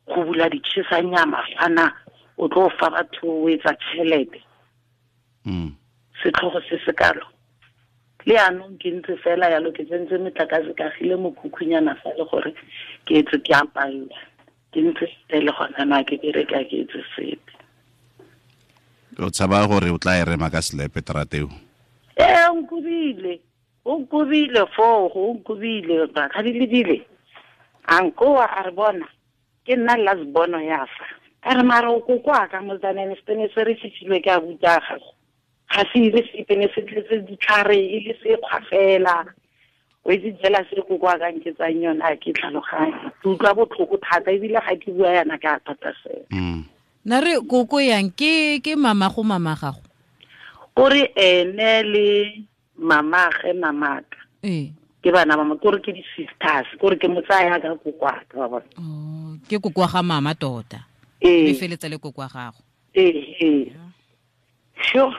go bula ditšhesa nyama fana o tlo fa batho o etsa tšhelete. Setlhogo se se kalo le anong ke ntse fela yalo ke tsentse metlakase ka gile mokhukhunyana fa le gore ke etse ke apalla ke ntse le gona na ke bereka ke etse sepe. O tshaba gore o tla e rema ka selepe terateo. Ee, o nkobile foo, o nkobile ga di lebile. A nkoa a re bona ke nna last bono ya fa. A re mara o kokoa ka motsaneng setene se re fitlhilwe ke a buta gago. Ga se ile sepe ne se tletse ditlhare e le sekgwa fela. O itse jealous re kokoa ka nketsang yona a ke tlhaloganye. Ke utlwa botlhoko thata ebile ga ke bua yana ke a thata fela. Na re koko yang ke mama go mama gago. O re ene le mama ge mamaka. Ke bana ba mo kore ke di sisters, kore ke motsaya ka koko a ka ba bona. Oh, ke koko ga mama tota. E feletsa le koko gago. Ee. Sure.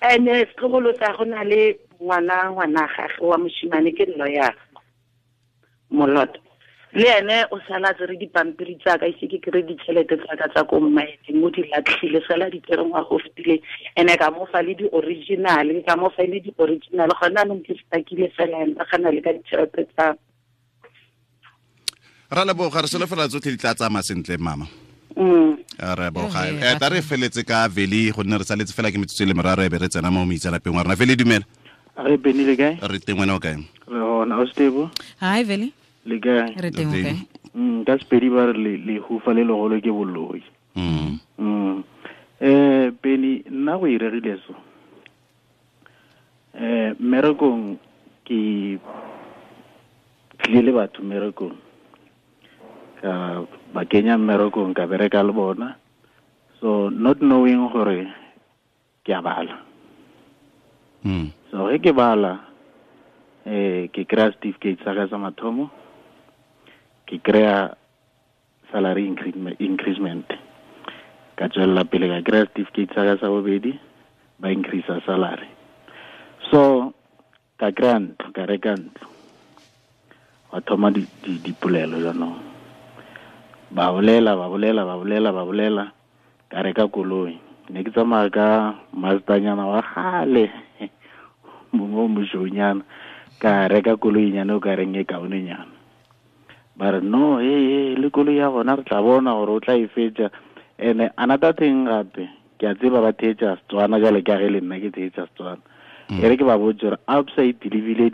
Ene setlogolo sa go na le ngwana gagwe wa moshimane ke lawyer Moloto. Le ene o sala tsere dipampiri tsa ka ise ke kry ditšhelete tsa ka tsa ko mmaeneng o di latlhile sala di tsere ngwaga o fetileng ene ka mo fa le di-original ka mo fa le di-original gone anong ke stakile fela ene ba gana le ka ditšhelete tsa. Ra leboga re solofela tsotlhe di tla tsamaya sentle mama. Re boga ta re feletse ka Veli gonne re saletse fela ke metsotso e le meraro e be re tsena mo moitsanapeng wa rona. Veli dumela. Re Beni le kae? Re teng wena o kae? Re hona o stable. Hi Veli. Le kae? Re teng o kae? Ka Sepedi ba re lehufa le legolo ke boloi. Beni nna go iregile so. Mmerekong ke tlile le batho mmerekong. Ka ba kenya mmerekong ka bereka le bona. So not knowing gore ke a bala. So ge ke bala ke kry-a certificate sa ka sa mathomo, ke kry-a salary increment. Ka tswelela pele ka kry-a certificate sa ka sa bobedi, ba increase salary. So ka kry-a ntlo, ka reka ntlo. Wa thoma dipolelo jaanong. Ba bolela. Ka reka koloi. Ne ke tsamaya ka Mazdanyana wa kgale. Mongwe o mošweunyana. Ka reka koloinyana o ka reng e kaonenyana. Ba re no, le koloi ya gona re tla bona gore o tla e fetša. And another thing gape, ke a tseba ba theetša Setswana jale ka ge le nna ke theetša Setswana. E re ke ba botse gore outside lebile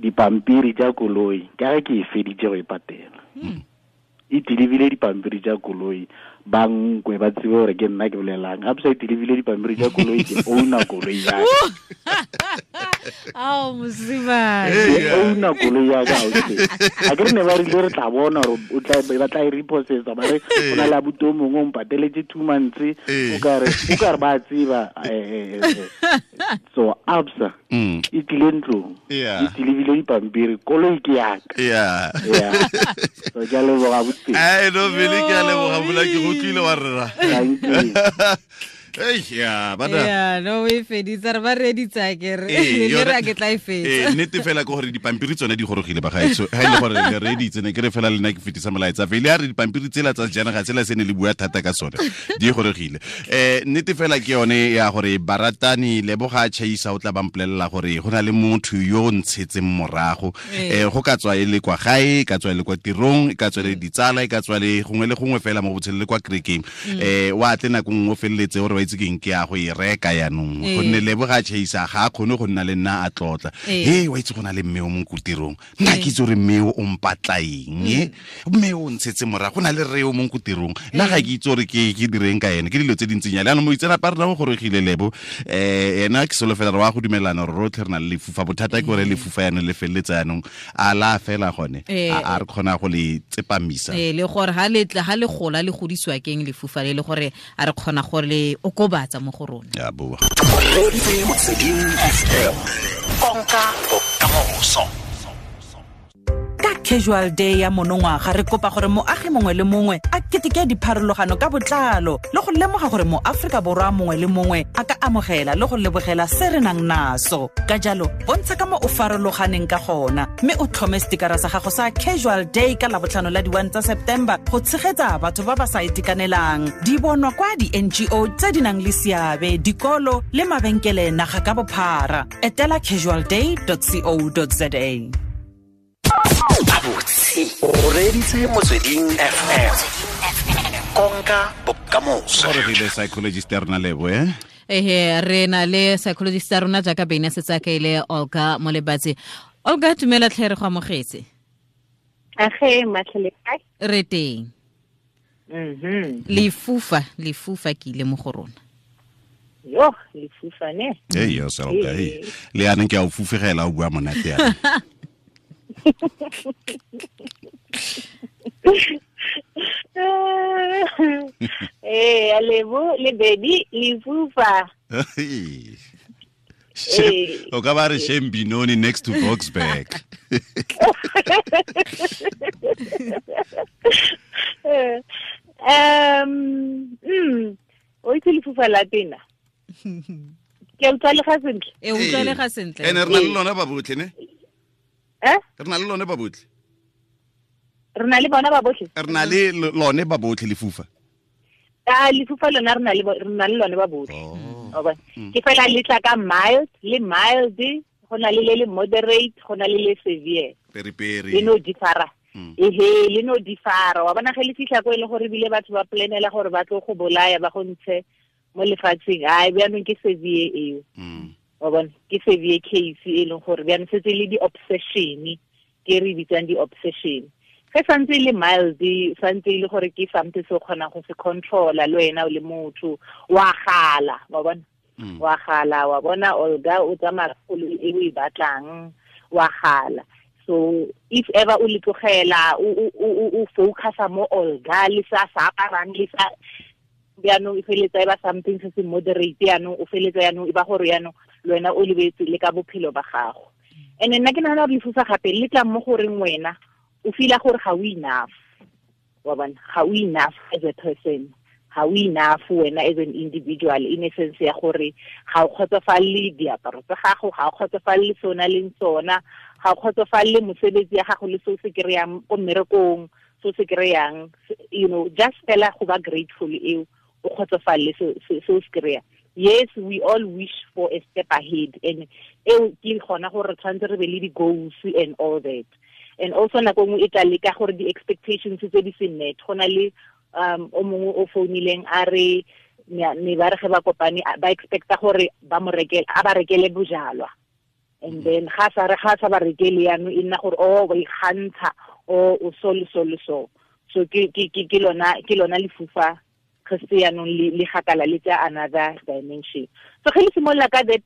dipampiri tša koloi ka ge ke e feditše go e patela. E dilebile dipampiri tša koloi, ba nkwe ba tsebe gore ke nna ke bolelang. Gape sa e dilebile dipampiri tša koloi, ke owner koloi ya ka. Ao mosimane. Ke owner koloi ya ka ausi. A ke re ne ba rile re tla bona gore o tla ba tla e repossessa, ba re o na le abuti o mongwe o mpateletse 2 months, o ka re ba tseba. So absa e tlile ntlong, e dilebile dipampiri, koloi ke ya ka. Yeah. So ke a leboga abuti. Ai no vele ke a leboga mola ke go tlile wa rra. Thank you. Ei ya bana. Ya no we feditsa re ba reditsa ke re le re ke tla e fetsa. Nnete fela ke gore dipampiri tsone di gorogile ba gaetso. Ha ile gore le reditse ne ke re fela le nna ke fetisa molaetsa. Fele a re dipampiri tsela tsa sejanaga tsela se ne le bua thata ka sone. Di gorogile. Nnete fela ke yone ya gore baratani leboga chaisa o tla ba mpolelela gore go na le motho yo o ntshetseng morago. Go ka tswa e le kwa gae, ka tswa e le kwa tirong, ka tswa le ditsala, ka tswa le gongwe le gongwe fela mo botshelo le kwa kerekeng. Wa tle nako nngwe o feleletse gore itse ke eng ke ya go e reka yanong gonne leboga chaisa ga a kgone go nna le nna a tlotla. Wa itse go na le mme o mong ko tirong, nna ke itse gore mme o mpatla eng, mme o ntshetse morago, go na le rre o mong ko tirong, nna ga ke itse gore ke direng ka ene, ke dilo tse dintsinyana. Jaanong moitseanape a rona o gorogile Lebo, ena ke solofela re wa go dumelana gore rotlhe re na le lefufa. Bothata ke gore lefufa yanong le feleletse yanong a la fela gone, a re kgona go le tsepamisa. Le gore ha le tla ha le gola le godisiwa keng lefufa le gore a re kgona gore le okobatsa mo go rona. Ya boa. Konka bokamoso. Ka casual day ya monongwaga re kopa gore moagi mongwe le mongwe a keteke dipharologano ka botlalo le go lemoga gore mo Afrika Borwa mongwe le mongwe a ka amogela le go lebogela se re nang naso. Ka jalo bontsha ka mo o farologaneng ka gona mme o tlhome setikara sa gago sa casual day ka labotlhano la di-1 tsa September go tshegetsa batho ba ba sa itekanelang. Di bonwa kwa di-NGO tse di nang le seabe, dikolo le mabenkele naga ka bophara. Etela casualday.co.za. O reditse Motsweding FM. Konka bokamoso. Gore re le psychologist ya rona Lebo, Re na le psychologist ya rona jaaka Bene setsa ka ile Olga Molebatsi. Olga, tumela tlhe re go amogetse. Age matlhele kae? Re teng. Lefufa ke ile mo go rona. Yo, lefufa ne. Yo Olga, le yaneng ke a o fufegela o bua monate yana. Lebo le baby lefufa. O ka ba re Shane Binoni next to Boksburg. O itse lefufa la tena. Ke utlwa le ga sentle. Utlwa le ga sentle. Ene re na le lona ba botlhe ne? Re na le lone ba botlhe. Re na le bona ba botlhe. Re na le lone ba botlhe lefufa. Lefufa lona re na le lone ba botlhe. Ke fela le tla ka mild, le mild, go na le le moderate, go na le le severe. Peri. Le no differa. Le no differa. Wa bona ge le fihla ko e le gore bile batho ba planela gore ba tlo go bolaya ba go ntshe mo lefatsheng. Ai bjanong ke severe eo. Wa bona ke severe case e leng gore bjanong setse le di-obsession, ke re bitsang di-obsession. Ge santse le mild, santse le gore ke something se o kgonang go se controla le wena o le motho, wa gala, wa bona. Wa gala, wa bona Olga o tsamaya koloi e o e batlang, wa gala. So if ever o le tlogela o focusa mo Olga le sa aparang le sa bjanong e feletsa e ba something se se moderate yanong o feletsa yanong e ba gore yanong le wena o lebetse le ka bophelo ba gago. And nna ke nagana gore lefufa gape le tla mo goreng wena o feela gore ga o enough. Wa bona, ga o enough as a person, ga o enough wena as an individual, in a sense ya gore ga o kgotsofalele diaparo tsa gago, ga o kgotsofalele se o na leng sona, ga o kgotsofalele mosebetsi ya gago le se o se kry-ang ko mmerekong. so se kry-ang, you know, just fela go ba grateful eo o kgotsofalele se o se kry-a. Yes, we all wish for a step ahead, and eo ke gona gore re tshwanetse re be le di-goals and all that. And also nako nngwe e tla leka gore di-expectations tse di se met. Go na le o mongwe o founileng a re ne ba re ge ba kopane ba expecta gore ba mo rekele, a ba rekele bojalwa. And then ga sa re ga sa ba rekele yaanong e nna gore o ba ikgantsha o o so le so le so. So ke lona lefufa ge yaanong le gakala le tsa another dimension. So ge le simolola ka that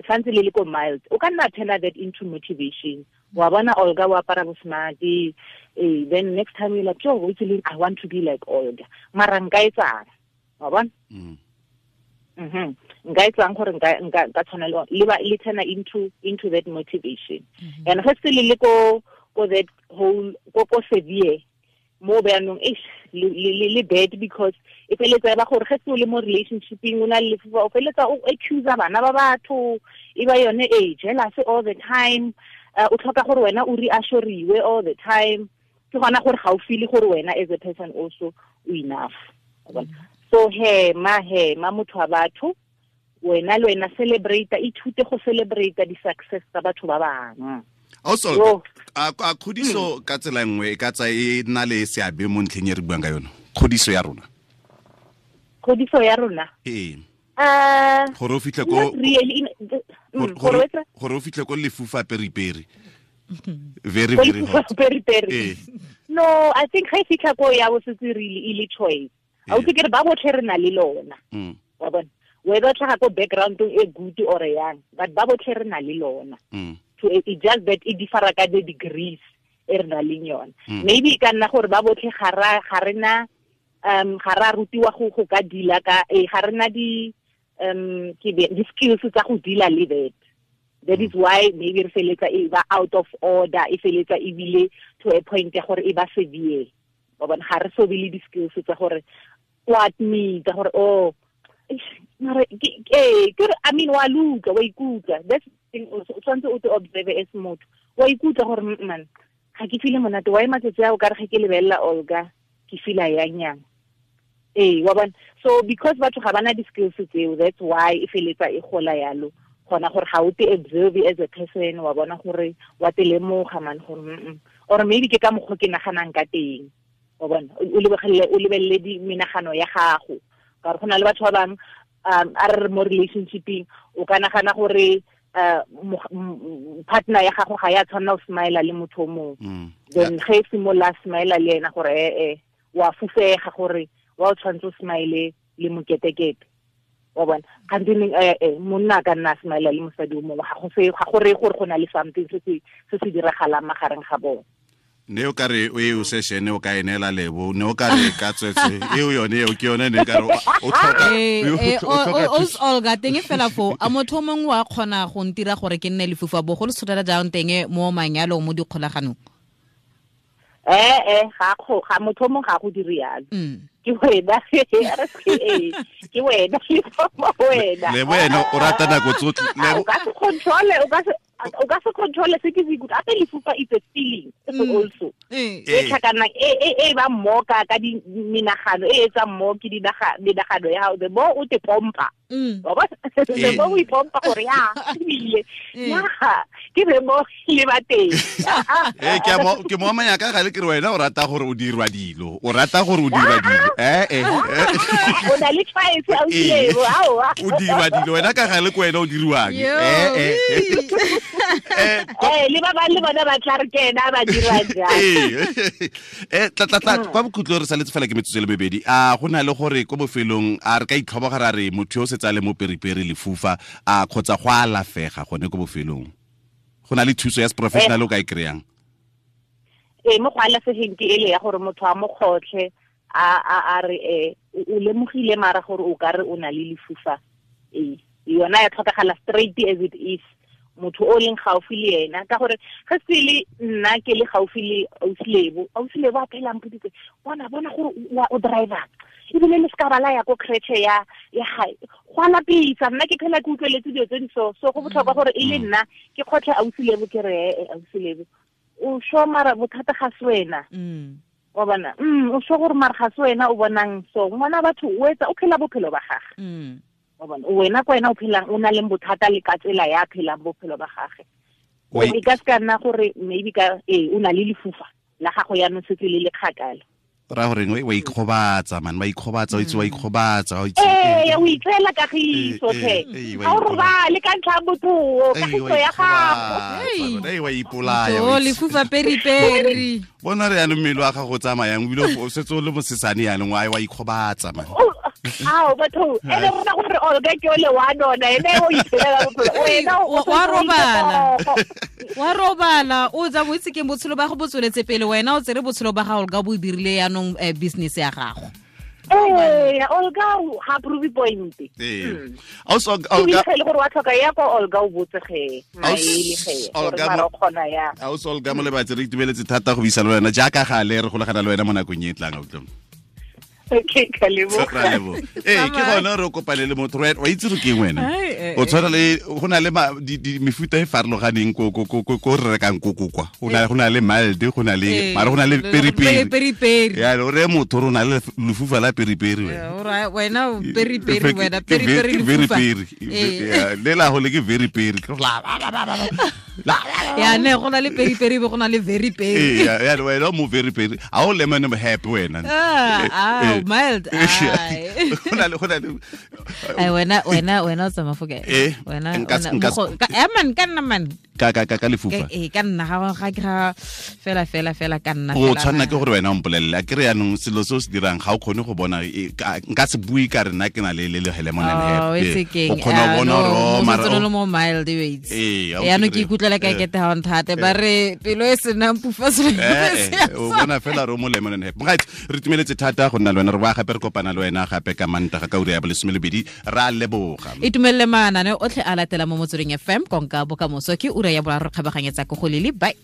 santse le le ko mild, o ka nna turn that into motivation. Wa bona Olga wa apara bo smart, then next time you're like, yo, I want to be like Olga. Mara nka etsang? Wa bona? Nka etsang gore nka tshwana le ba le turn into that motivation. And ge se le ko that whole ko severe mo bjanong le bad, because e feletsa ba gore ge se o le mo relationshipeng o na le lefufa, o feletsa o accuse bana ba batho, e ba yone e jealous all the time, o tlhoka gore wena o reassuriwe all the time. Ke gona gore ga o feel gore wena as a person also o enough. So he ma motho wa batho, wena le wena celebrate, ithute go celebrate di success tsa batho ba bangwe. Also, a kgodiso ka tsela nngwe e ka tsa e nna le seabe mo ntlheng e re buang ka yone? Kgodiso ya rona. Kgodiso ya rona? Ee. Gore o fitlhe ko gore o fitlhe ko lefufa periperi. Very very hot. Periperi. No, I think ga e fitlha ko ya bo setse really e le choice. A o ke re ba botlhe re na le lona. Wa bona? Whether tlhaga ko background e good or yang, but ba botlhe re na le lona. So it just that it differ ka the degrees e re na leng yone. Maybe ka nna gore ba botlhe ga re na ga ra rutiwa go ka deala ka ga re na di ke di skills tsa go deala le that. That is why maybe re feletsa e ba out of order, e feletsa ebile to a point ya gore e ba severe. Ba bona ga re so be le di skills tsa gore o admit gore oh mara ke I mean wa luka wa ikutlwa. That's thing also o tshwanetse o te observe as motho, wa ikutlwa gore man ga ke feel monate, wa matsatsi a o ka re ge ke lebelela Olga ke feel yang yang. Wa bona? So because batho ga bana di skills tseo, that's why e feletsa e gola yalo. Gona gore ga o te observe as a person, wa bona gore wa te lemoga man gore or maybe ke ka mokgwa ke naganang ka teng. Wa bona? O lebelele di menagano ya gago. Ka gore go na le batho ba bangwe a re mo relationshipeng o ka nagana gore partner ya gago ga ya tshwanela go smile le motho o mongwe. Then ge e simolola smile le ena gore wa fufega gore wa o tshwanetse o smile le moketekete. Wa bona? Kgante monna a ka nna a smile le mosadi o mongwe, ga go reye gore go na le something se se diragalang magareng ga bone. Ne o ka re o e o session o ka e neela Lebo, ne o ka re ka tswetswe eo yone eo ke yone ne ka re o tlhoka Olga teng fela fo a motho mongwe wa kgona go ntira gore ke nne lefufa bogolo tshotela jang teng mo manyalong mo dikgolaganong? Ga motho mongwe ga go dire yalo. Ke wena ke wena wena le wena o rata nako tsotlhe. O ka se control, o ka se control se ke se ikutlwa. Ape lefufa it's a feeling also. E tlhakana e ba mmoka ka di menagano e etsa mmoki di menagano ya gago, the more o te pompa. Wa bona? The more o ipompa gore ya ebile ya ke the more le ba teng. Ke mo amanya ka gale ke re wena o rata gore o dirwa dilo, o rata gore o dirwa dilo. O na le choice a o dilebo aowa. O dirwa dilo wena ka gale ke wena o diriwang. Le ba bang le bona ba tla re ke ena ba dira jang. Tla kwa bokhutlong re saletse fela ke metsotso le mebedi. A go na le gore ko bofelong a re ka itlhoboga ra re motho yo o setse a le mo periperi lefufa a kgotsa go alafega gone ko bofelong? Go na le thuso ya professional o ka e kry-ang? Mo go alafegeng ke ele ya gore motho a mo kgotlhe a re o lemogile mara gore o ka re o na le lefufa. Yona ya tlhokagala straight as it is. Motho o leng gaufi le ena, ka gore ge se le nna ke le gaufi le Ausilebo, Ausilebo a phela mpoditse bona gore o driver ebile le ska bala ya ko creche ya gae go a lapisa. Nna ke phela ke utlweletse dilo tse di so go botlhokwa gore e le nna ke kgotlhe Ausilebo ke re Ausilebo o sho mara bothata ga se wena. Wa bona o sho gore mara ga se wena o bonang so ngwana batho o etsa o phela bophelo ba gagwe. Wa bona wena kwa wena o phelang o na le bothata le ka tsela ya phelang bophelo ba gagwe. E ka se ka nna gore maybe ka o na le lefufa la gago ya no setse le le kgakala. Ra gore wa ikgobatsa man, wa ikgobatsa, o itse wa ikgobatsa, o itse. O itseela kagiso tlhe. Ga o robale ka ntlha ya botho, kagiso ya gago. Wa ipolaya. O lefufa peri-peri. Bona re yanong mmele wa gago o tsamayang, ebile o setse o le mosesane yanong, wa ikgobatsa man. Ao batho, ene rona gore Olga ke ole wa nona, ene o iphelela bophelo. Wena wa robala. Wa robala, o tsa mo itse ke botshelo ba go botsweletse pele, wena o tsere botshelo ba ga Olga bo dirile yanong business ya gago. Olga ga prove point. Also Olga ke le gore wa tlhoka ya kwa Olga o botse ge. Maele ge. Olga mo kgona ya. Also Olga mo lebatse re itumeletse thata go buisa le wena jaaka gale re golagana le wena mo nakong e tlang o tlong. Okay, ka leboga. Ke gone re kopane le motho wa itse re keng wena. O tshwana le go na le mefuta e farologaneng ko re rekang koko kwa. Go na le mild, go na le mara go na le peri-peri. Ya re motho re na le lefufa la peri-peri wena. Wena peri-peri wena peri-peri lefufa. Le la go le ke very peri. Ya ne go na le peri-peri be go na le very peri. Ya wena mo very peri. A o lemon happy wena. Mild. Ai wena wena o tsamaya fo kae? Wena man ka nna man. Ka lefufa. Ka nna ga ke ga fela ka nna. O tshwanna ke gore wena o mpolelle. A ke re yanong selo se o se dirang ga o kgone go bona nka se bue ka rena ke na le le lemon and happy. O kgona go bona gore mara o mo mild weights. Yanong ke ikutlwela ka kete ha o nthate ba re pelo e senang pufa se. O bona fela re mo lemon and happy. Right, re tumeletse thata go nna le wena re ba gape re kopana le wena gape ka Mantaga ka ura ya 12 ra leboga. Itumelele manane otlhe a latela mo Motsweding FM konka bokamoso ke ura ya boraro kgabaganyetsa ko go lele. Bye.